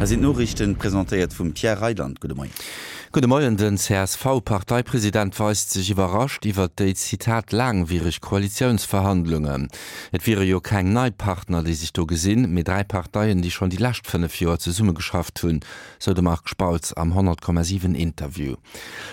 Hei sinn d'Noriichten, presentéiert vum Pierre Reyland. Gudde Moien. Gudde Moien. Den CSV-Parteipresident weist sech iwwerrascht iwwert déi, Zitat, laangwiereg Koalitiounsverhandlungen. Et wiere jo keng nei Partner, déi sech do gesinn, mee 3 Parteien, déi schonn déi lescht 5 Joer zesummegeschafft hunn, sou de Marc Spautz am 100,7 Interview.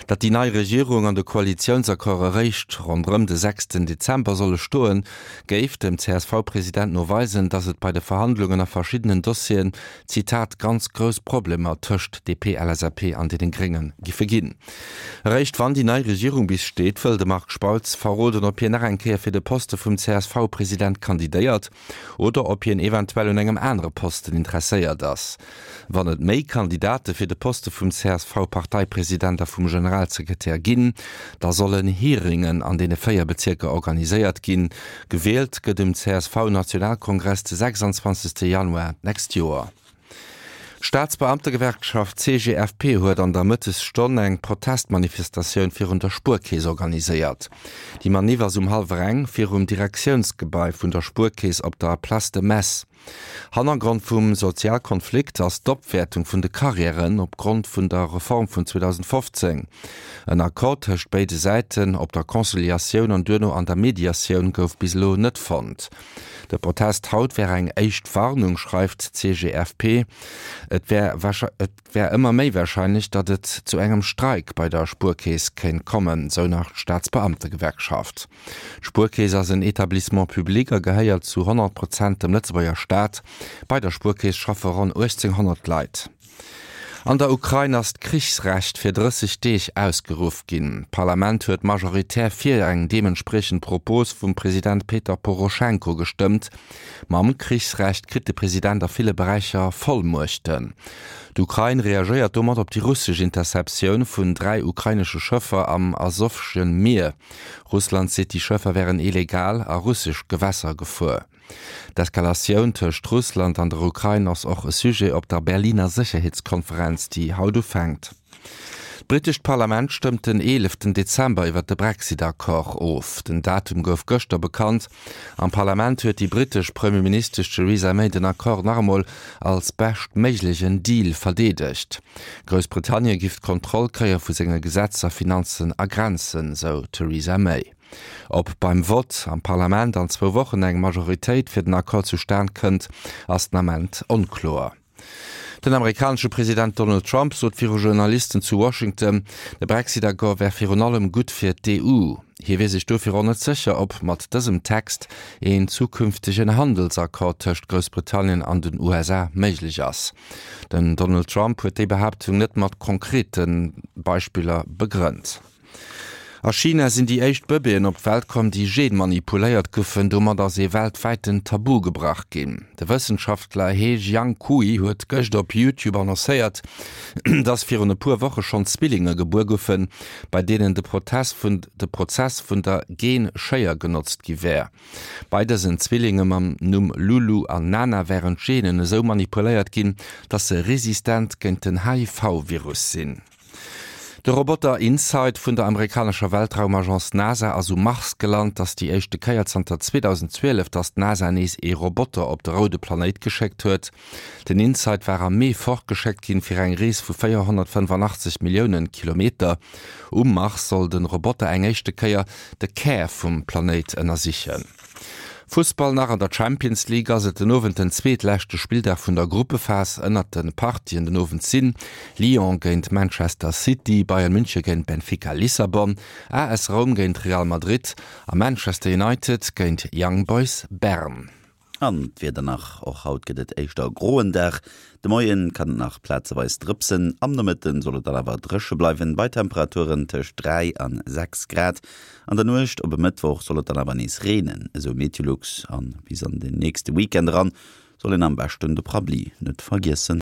Datt déi nei Regierung an de Koalitiounsaccord eréischt ronderëm de sechsten Dezember solle stoen, géif dem CSV-President no weisen, datt et bei de Verhandlungen a verschiddenen Dossieren, Zitat, ganz grouss Problemer tëscht DP, LSAP an deenen Grénge giffe ginn. Eréischt wann déi nei Regierung bis steet, wëll de Marc Spautz verroden, ob hien nach eng Kéier fir de Poste vum CSV-President kandidéiert oder ob hien eventuell un engem anere Posten interesséiert ass. Wann et méi Kandidate fir de Poste vum CSV-Parteipresident a vum Generalsekretär ginn, da sollen Hearingen an deene 4 Bezierker organiséiert ginn. Gewielt gëtt um CSV-Nationalkongress de 26 Januar d'nächst Joer. D'Staatsbeamtegewerkschaft CGFP huet an der Mëttesstonn eng Protestmanifestatioun virun der Spuerkeess organiséiert. Déi Maniff ass um hallwer eng virum Direktiounsgebai vun der Spuerkeess op der Place de Metz. Hannergrond vum Sozialkonflikt ass d'Opwäertung vun de Karriären op Grond vun der Reform vun 2015. En Accord tëscht béide Säiten op der Conciliatioun an duerno an der Mediatioun gouf bis elo net fonnt. De Protest haut wär eng éischt Warnung, schreift d'CGFP. Et wär Et wär ëmmer méi warscheinlech, datt et zu engem Streik bei der Spuerkeess kéint kommen, sou nach d'Staatsbeamtegewerkschaft. D'Spuerkeess ass en Etablissement public a gehéiert zu 100 Prozent dem Lëtzebuerger Staat. Bei der Spuerkeess schaffe ronn 1.800 Leit. An der Ukrain ass d'Krichsrecht fir 30 Deeg ausgeruff ginn. D'Parlament huet majoritär fir eng deementspriechend Propos vum President Peter Poroschenko gestëmmt. Mam Krichsrecht kritt de President a ville Beräicher Vollmuechten. D'Ukrain reagéiert domat op déi russesch Interceptioun vun 3 ukrainesche Schëffer am Asowsche Mier. Russland seet, déi Schëffer wären illegal a russesch Gewässer gefuer. D'Eskalatioun tëscht Russland an der Ukrain ass och e Sujet op der Berliner Sécherheetskonferenz, déi haut ufänkt. D'britescht Parlament stëmmt den eeleften Dezember iwwer de Brexit-Accord of. Den Datum gouf gëschter bekannt. Am Parlament huet déi britesch Premierministesch Theresa May den Accord nach emol als beschtméiglegen Deal verdeedegt. Groussbritannien giff d'Kontroll kréie vu senge Gesetzer, Finanzen a Grenzen, sou d'Theresa May. Ob beim Vott am Parlament an zwou Wochen eng Majoritéit fir den Accord zustan kënnt, ass den Ament onkloer. Den amerikanesche President Donald Trump sot viru Journalisten zu Washington, de Brexit-Accord wär virun allem gutt fir d'EU. Hie wier sech dofir och net sécher, ob mat dësem Text een zukünftegen Handelsaccord tëscht Groussbritannien an den USA méiglech ass. Den Donald Trump huet déi Behaaptung net mat konkrete Beispiller begrënnt. A China sinn déi éischt Bëbeeën op d'Welt komm, déi genmanipuléiert goufen. Domat ass ee weltwäiten Tabu gebrach ginn. De Wëssenschaftler He Jiankui huet gëscht op YouTube annoncéiert, dass virun e puer Woche schonn Zwillinge gebuer goufen, bei deenen de Protess vun de Prozess vun der Gen-Schéier genotzt gi wär. Bei dësen Zwillinge mam Numm Lulu an Nana wären d'Genen esou manipuléiert ginn, dass se resistent géint den HIV-Virus sinn. De Roboter InSight vun der amerikanescher Weltraumagence NASA ass um Mars gelant. Ass déi éischte Kéier zanter 2012, datt d'NASA nees ee Roboter op de roude Planéit geschéckt huet. Den InSight war am Mee fortgeschéckt ginn, fir eng Rees vu 485 Milliounen Kilometer. Um Mars soll de Roboter eng éischte Kéier de Kär vum Planéit ënnersichen. Fussball nach, An der Champions League ass et den Owend den zweetleschte Spilldag vun der Gruppephas. Ënnert de Partien den Owend sinn, Lyon géint Manchester City, Bayern München géint Benfica Lissabon, AS Roum géint Real Madrid a Manchester United géint Young Boys Bern. An d'Wieder nach, Och haut gëtt et éischter e groen Dag. De Moien kann et nach plazeweis drëpsen, am Nomëtten soll et dann awer dréche bleiwen, bei Temperaturen tëscht 3 an 6 Grad. An der Nuecht op e Mëttwoch soll et dann awer nees reenen, esou Meteolux, an bis an den nächste Weekend eran soll een am beschten de Prabbli net vergiessen.